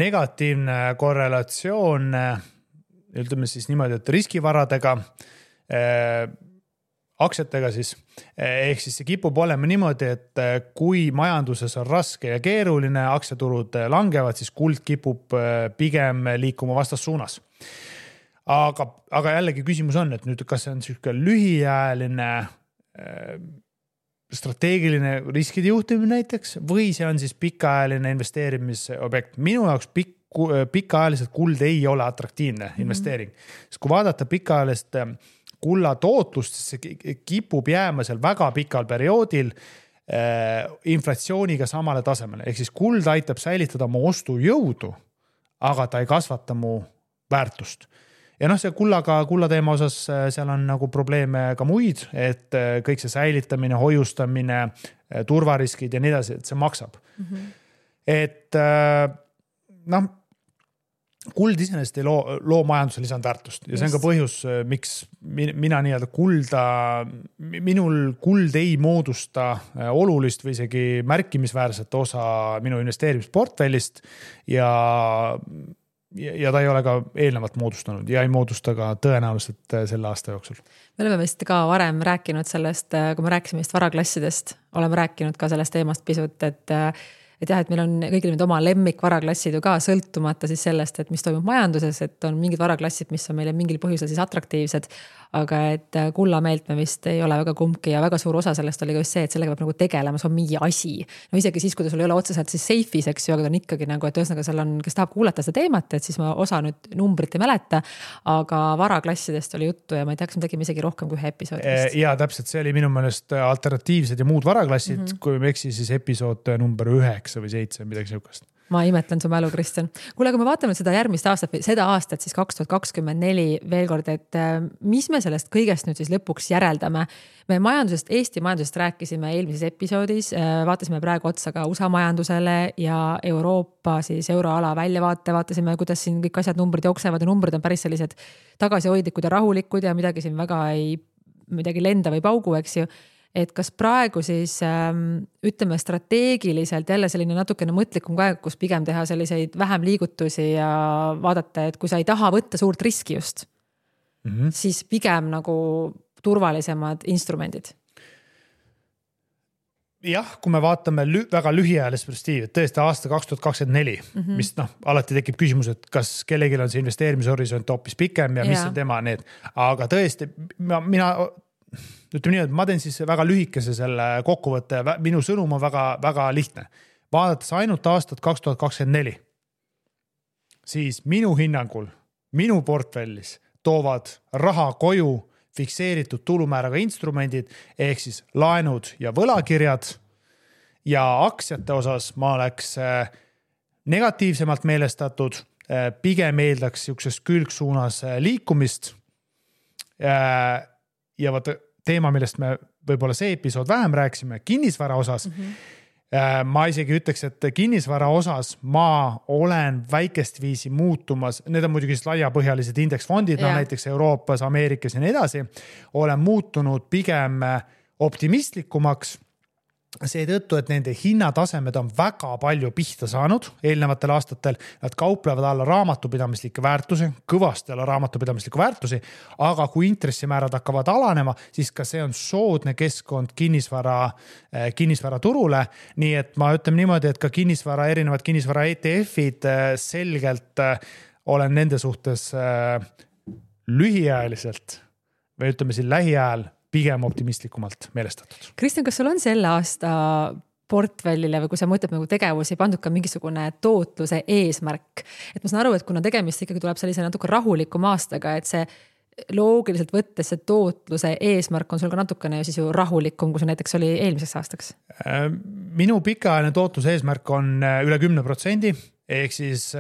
negatiivne korrelatsioon, ütleme siis niimoodi, et riskivaradega, aktsiatega siis, ehk siis see kipub olema niimoodi, et kui majanduses on raske ja keeruline, aktsiaturud langevad, siis kuld kipub pigem liikuma vastassuunas. Aga jällegi küsimus on, et nüüd kas see on selline lühiajaline strateegiline riskide juhtimine näiteks või see on siis pikaajaline investeerimisobjekt. Minu jaoks pikaajaliselt kuld ei ole atraktiivne investeering. Sest kui vaadata pikaajalist kulla tootlust, siis see kipub jääma seal väga pikal perioodil inflatsiooniga samale tasemele. Ehk siis kuld aitab säilitada mu ostujõudu, aga ta ei kasvata mu väärtust. Ja see kulla teema osas seal on nagu probleeme ka muid, et kõik see säilitamine, hoiustamine, turvariskid ja nii edasi, et see maksab. Et kuld iseenesest ei loo majanduse lisandväärtust ja see on ka põhjus, miks mina nii-öelda minul kuld ei moodusta olulist või isegi märkimisväärset osa minu investeerimisportfellist ja ta ei ole ka eelnevalt moodustanud ja ei moodusta ka tõenäoliselt selle aasta jooksul. Me oleme vist ka varem rääkinud sellest, kui me rääkisime vist varaklassidest, oleme rääkinud ka sellest teemast pisut, et jah, et meil on kõigil need oma lemmik varaklassid ju ka sõltumata siis sellest, et mis toimub majanduses, et on mingid varaklassid, mis on meile mingil põhjusel siis atraktiivsed, aga et kullameelt me vist ei ole väga kumbki ja väga suur osa sellest oli ka just see, et sellega peab nagu tegelema, see on mingi asi. No isegi siis, kui ta sul ei ole otseselt siis safe'is, eks ju, aga ta on ikkagi nagu, et ühesõnaga seal on, kes tahab kuulata seda teemat, et siis ma osa nüüd numbrit ei mäleta, aga varaklassidest oli juttu ja ma ei tea, kas me tegime isegi rohkem kui ühe episoodist. Ja täpselt, see oli minu meelest alternatiivsed ja muud varaklassid, kui me eksi siis episood number 9 või 7, midagi niisugust. Ma imetlen su mälu, Kristjan. Kuule, kui me vaatame seda järgmist aastat, seda aastat siis 2024 veel kord, et mis me sellest kõigest nüüd siis lõpuks järeldame? Me majandusest, Eesti majandusest rääkisime eelmises episoodis, vaatasime praegu otsa ka USA majandusele ja Euroopa siis euroala väljavaate, vaatasime, kuidas siin kõik asjad numbrid jooksevad ja numbrid on päris sellised tagasihoidlikud ja rahulikud ja midagi siin väga midagi lenda või paugu, eks ju. Et kas praegu siis ütleme strateegiliselt jälle selline natukene mõtlikum aeg, kus pigem teha selliseid vähem liigutusi ja vaadata, et kui sa ei taha võtta suurt riski just, siis pigem nagu turvalisemad instrumendid. Jah, kui me vaatame väga lühiajalist perspektiivi, tõesti aasta 2024, mis alati tekib küsimus, et kas kellelgi on see investeerimishorisont hoopis pikem ja mis on tema need. Aga tõesti, mina ütleme nii, et ma teen siis väga lühikese selle kokkuvõtte. Minu sõnum on väga, väga lihtne. vaadates ainult aastat 2024, siis minu hinnangul, minu portfellis toovad raha koju fikseeritud tulumääraga instrumendid ehk siis laenud ja võlakirjad ja aktsiate osas ma oleks negatiivsemalt meelestatud, pigem eeldaks niisuguses külgsuunas liikumist ja vaata teema, millest me võib-olla see episood vähem rääkisime, kinnisvara osas. Ma isegi ütleks, et kinnisvara osas ma olen väikest viisi muutumas, need on muidugi laiapõhjalised indeksfondid, näiteks Euroopas, Ameerikas ja nii edasi, olen muutunud pigem optimistlikumaks seetõttu, et nende hinnatasemed on väga palju pihta saanud eelnevatel aastatel. Nad kauplevad alla raamatupidamislikke väärtusi, kõvasti alla raamatupidamislikke väärtusi, aga kui intressimäärad hakkavad alanema, siis ka see on soodne keskkond kinnisvara turule. Nii et ma ütlen niimoodi, et ka erinevad kinnisvara ETF-id selgelt olen nende suhtes lühiajaliselt või ütleme siin lähiajal pigem optimistlikumalt meelestatud. Kristjan, kas sul on selle aasta portfellile või kui sa mõtled nagu tegevusi, pandud ka mingisugune tootluse eesmärk? Et ma saan aru, et kuna tegemist ikkagi tuleb sellise natuke rahulikum aastaga, et see loogiliselt võttes see tootluse eesmärk on sul ka natukene siis ju rahulikum, kui see näiteks oli eelmiseks aastaks? Minu pikaajaline tootluse eesmärk on üle 10%, ehk siis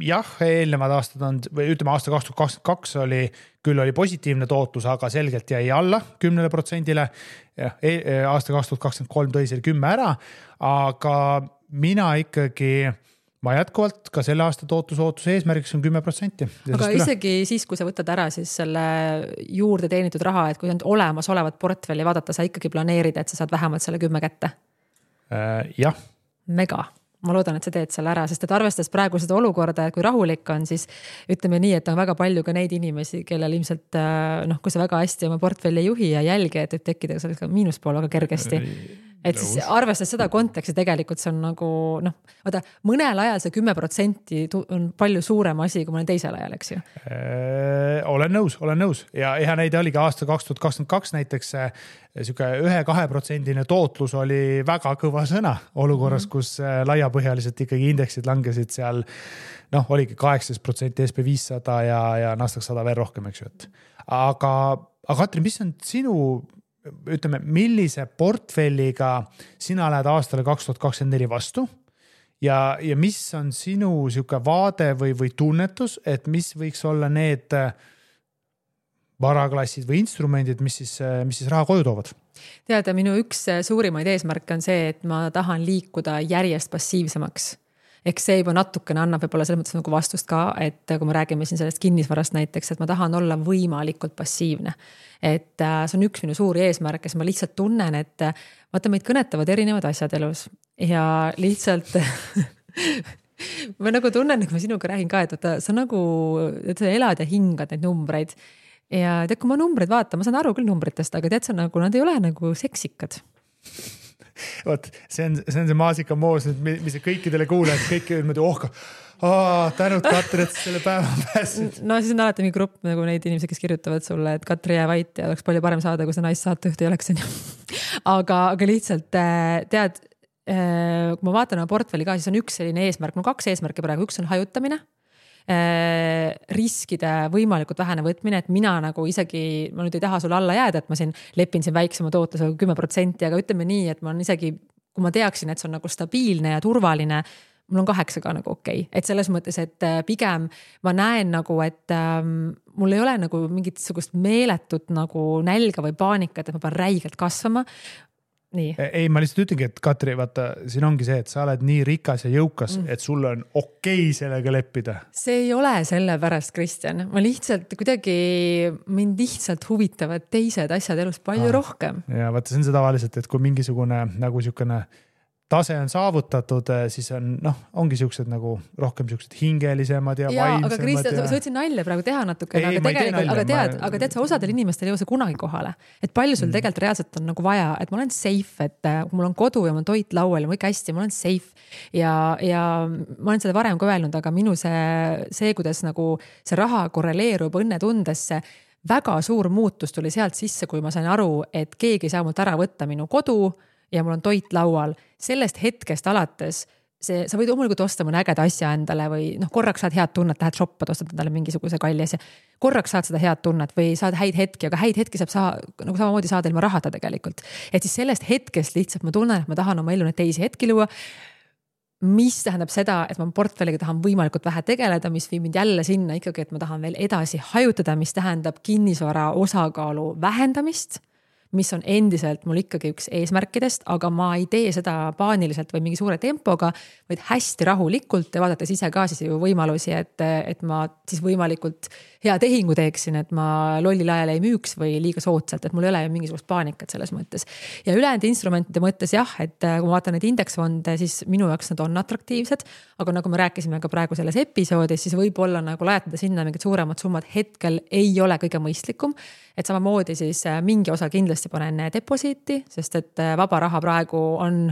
jah, eelnevad aastad on, või ütleme aasta 2022 oli positiivne tootlus, aga selgelt jäi alla 10%-le. Aasta 2023 tõi selle 10 ära, aga ma jätkuvalt ka selle aasta tootlusootuse eesmärgiks on 10%. Aga isegi siis, kui sa võtad ära siis selle juurde teenitud raha, et kui on olemasolevat portfelli vaadata, sa ikkagi planeerid, et sa saad vähemalt selle 10 kätte? Jah. Mega. Ma loodan, et sa teed selle ära, sest et arvestades praegu seda olukorda, et kui rahulik on, siis ütleme nii, et on väga palju ka neid inimesi, kellel ilmselt, kui sa väga hästi oma portfelli juhi ja jälgi, et võib tekkida ka miinuspool väga kergesti. Et siis arvestades seda konteksti tegelikult see on nagu, mõnel ajal see 10% on palju suurem asi, kui mõnel teisel ajal, eks ju? Olen nõus. Ja hea näide oligi aasta 2022 näiteks 1-2% tootlus oli väga kõva sõna olukorras, kus laiapõhjaliselt ikkagi indeksid langesid seal, oligi 18% SP500 ja Nasdaq 100 veel rohkem, eks ju. Aga Katrin, mis on sinu ütleme, millise portfelliga sina lähed aastale 2024 vastu ja mis on sinu siuke vaade või tunnetus, et mis võiks olla need varaklassid või instrumendid, mis siis raha koju toovad? Teada, minu üks suurimaid eesmärke on see, et ma tahan liikuda järjest passiivsemaks. Eks see juba natukene annab võib-olla selles mõttes nagu vastust ka, et kui me räägime siin sellest kinnisvarast näiteks, et ma tahan olla võimalikult passiivne. Et see on üks minu suuri eesmärk, kes ma lihtsalt tunnen, et vaata meid kõnetavad erinevad asjad elus ja lihtsalt ma nagu tunnen, et ma sinuga räägin ka, et sa nagu et sa elad ja hingad neid numbreid ja tead, kui ma numbreid vaatan, ma saan aru küll numbritest, aga tead sa nagu, nad ei ole nagu seksikad. Vot, see on see maasikamoos, mis kõikidele kuulajad, kõik niimoodi tänud Katri, et selle päeva pääsid. No siis on alati mingi grupp nagu neid inimesi, kes kirjutavad sulle, et Katri jää vait ja oleks palju parem saada, kui see naissaatejuht ei oleks. Aga lihtsalt tead, kui ma vaatan oma portfelli ka, siis on üks selline eesmärk, 2 eesmärki praegu, üks on hajutamine, riskide võimalikult vähene võtmine, et mina nagu isegi, ma nüüd ei taha sulle alla jääda, et ma siin lepin siin väiksema tootlusega 10%, aga ütleme nii, et ma on isegi, kui ma teaksin, et see on nagu stabiilne ja turvaline, mul on 8 ka nagu okei. Et selles mõttes, et pigem ma näen nagu, et mul ei ole nagu mingit sugust meeletut nagu nälga või paanikat, et ma pean räigelt kasvama. Nii. Ei, ma lihtsalt ütlengi, et Katri, vaata, siin ongi see, et sa oled nii rikas ja jõukas, et sul on okei sellega leppida. See ei ole selle pärast, Kristjan. Ma lihtsalt kuidagi, mind lihtsalt huvitavad teised asjad elus palju rohkem. Ja vaata, see on see tavaliselt, et kui mingisugune nagu siukene tase on saavutatud, siis ongi siuksed nagu rohkem siuksed hingelisemad ja vaimsemad. Aga Kristjan, sa võtsin nalja praegu teha natukene, aga tead, sa osadel inimestel ei jõua kunagi kohale. Et palju sul tegelikult reaalselt on nagu vaja, et ma olen safe, et mul on kodu ja mul on toit laual ja mul ikka hästi, ma olen safe. Ja ma olen seda varem ka öelnud, aga minu see, kuidas nagu see raha korreleerub õnnetundesse, väga suur muutus tuli sealt sisse, kui ma sain aru, et keegi ei saa mult ära võtta minu kodu, ja mul on toit laual, sellest hetkest alates see, sa võid loomulikult osta mõne ägeda asja endale või korraks saad head tunnet, lähed shoppad, ostad endale mingisuguse kalli asja. Korraks saad seda head tunnet või saad häid hetki, aga häid hetki saab nagu samamoodi saada ilma rahata tegelikult. Et siis sellest hetkest lihtsalt ma tunnen, et ma tahan oma ellu neid teisi hetki luua, mis tähendab seda, et ma portfelliga tahan võimalikult vähe tegeleda, mis viib mind jälle sinna ikkagi, et ma tahan veel edasi hajutada, mis tähendab kinnisvara osakaalu vähendamist, mis on endiselt mul ikkagi üks eesmärkidest, aga ma ei tee seda paaniliselt või mingi suure tempoga, vaid hästi rahulikult ja vaadates ise ka siis ju võimalusi, et ma siis võimalikult hea tehingu teeksin, et ma lollil ajal ei müüks või liiga soodsalt, et mul ei ole mingisugust paanikat selles mõttes. Ja ülejäänud instrumentide mõttes jah, et kui ma vaatan neid indeksfonde, siis minu jaoks nad on atraktiivsed, aga nagu me rääkisime ka praegu selles episoodis, siis võib-olla nagu lajatada sinna mingid suuremad summad hetkel ei ole kõige mõistlikum, et samamoodi siis mingi osa kindlasti panen deposiiti, sest et vaba raha praegu on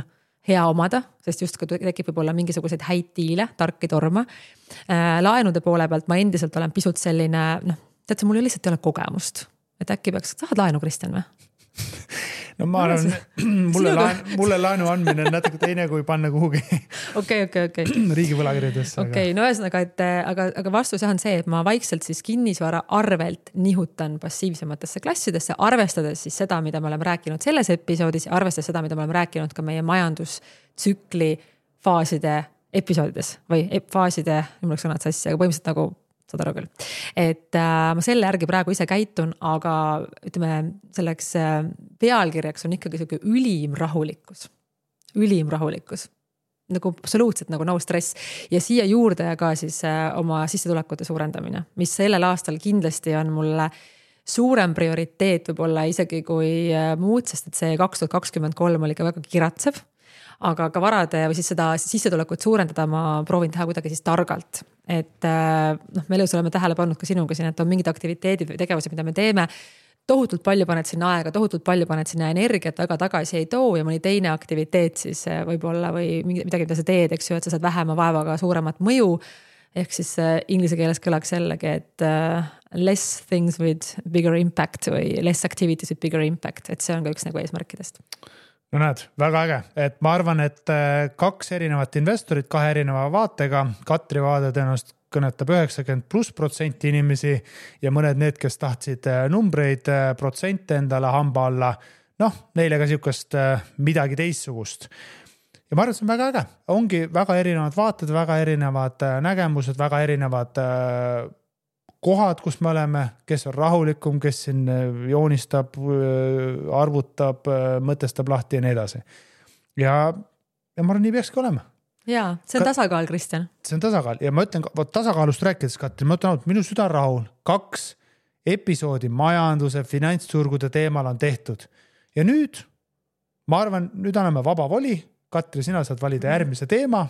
hea omada, sest just kui tekib võib-olla mingisuguseid häid diile, tarki torma. Laenude poole pealt ma endiselt olen pisut selline, tead, mul lihtsalt ei ole kogemust. Et äkki peaks, tahad laenu, Kristjan või? No ma arvan, mulle laenu andmine on natuke teine, kui panna kuhugi okay. riigi võlakirjadesse. Okay, no ühesõnaga, aga vastus on see, et ma vaikselt siis kinnisvara arvelt nihutan passiivsematesse klassidesse, arvestades siis seda, mida me oleme rääkinud selles episoodis ja arvestades seda, mida me oleme rääkinud ka meie majandustsükli faaside episoodides või faaside, mul oleks sõnad sassi, aga põhimõtteliselt nagu saad aru küll. Et ma selle järgi praegu ise käitun, aga ütleme, selleks pealkirjaks on ikkagi selline ülim rahulikkus. Nagu absoluutselt nagu no stress. Ja siia juurde ka siis oma sissetulekute suurendamine, mis sellel aastal kindlasti on mulle suurem prioriteet võib-olla isegi kui muud, sest et see 2023 oli ka väga kiratsev. Aga ka varade või siis seda sissetulekut suurendada ma proovin teha kuidagi siis targalt. Et me elus oleme tähele pannud ka sinuga siin, et on mingid aktiviteedid või tegevused, mida me teeme. Tohutult palju paned sinna aega, tohutult palju paned sinna energiat, aga tagasi ei too ja mõni teine aktiviteet siis võib-olla või midagi, mida sa teed, eks ju, et sa saad vähema vaevaga suuremat mõju. Ehk siis inglise keeles kõlaks jällegi, et less things with bigger impact või less activities with bigger impact, et see on ka üks nagu eesmärkidest. No näed, väga äge, et ma arvan, et 2 erinevat investorit 2 erineva vaatega, Katri vaade tõenäoliselt kõnetab 90+% inimesi ja mõned need, kes tahtsid numbreid, protsente endale hamba alla, neile ka siukest midagi teistsugust. Ja ma arvan, et see on väga äge, ongi väga erinevad vaated, väga erinevad nägemused, väga erinevad kohad, kus me oleme, kes on rahulikum, kes siin joonistab, arvutab, mõtestab lahti ja nii edasi. Ja ma arvan, nii peakski olema. Jaa, see on tasakaal, Kristjan. See on tasakaal ja ma ütlen, tasakaalust rääkides, Katri, ma ütlen, et minu süda rahul 2 episoodi majanduse, finantsturgude teemal on tehtud. Ja nüüd, ma arvan, nüüd anname vaba voli. Katri, sina saad valida järgmise teema.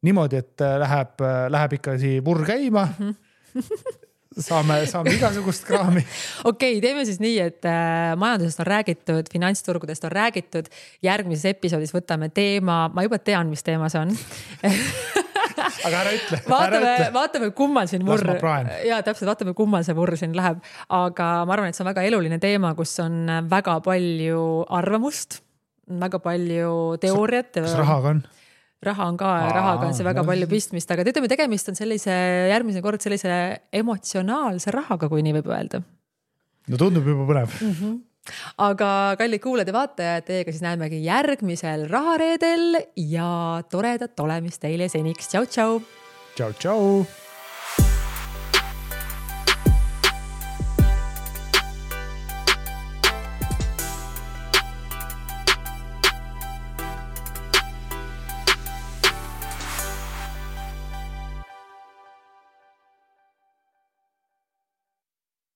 Niimoodi, et läheb ikka vurr käima. Saame igasugust kraami. Okei, teeme siis nii, et majandusest on räägitud, finantsturgudest on räägitud. Järgmises episoodis võtame teema, ma juba tean, mis teema see on. Aga ära ütle. Vaatame, kummal siin vurr. Ja täpselt, vaatame, kummal see vurr siin läheb. Aga ma arvan, et see on väga eluline teema, kus on väga palju arvamust, väga palju teooriat. Kas rahaga on? Rahaga on see väga palju pistmist, aga ütleme, tegemist on järgmine kord sellise emotsionaalse rahaga, kui nii võib öelda. No tundub juba põnev. Aga kallid kuulajad ja vaatajad, teiega siis näemegi järgmisel rahareedel ja toredat olemist teile seniks. Tšau, tšau! Tšau, tšau!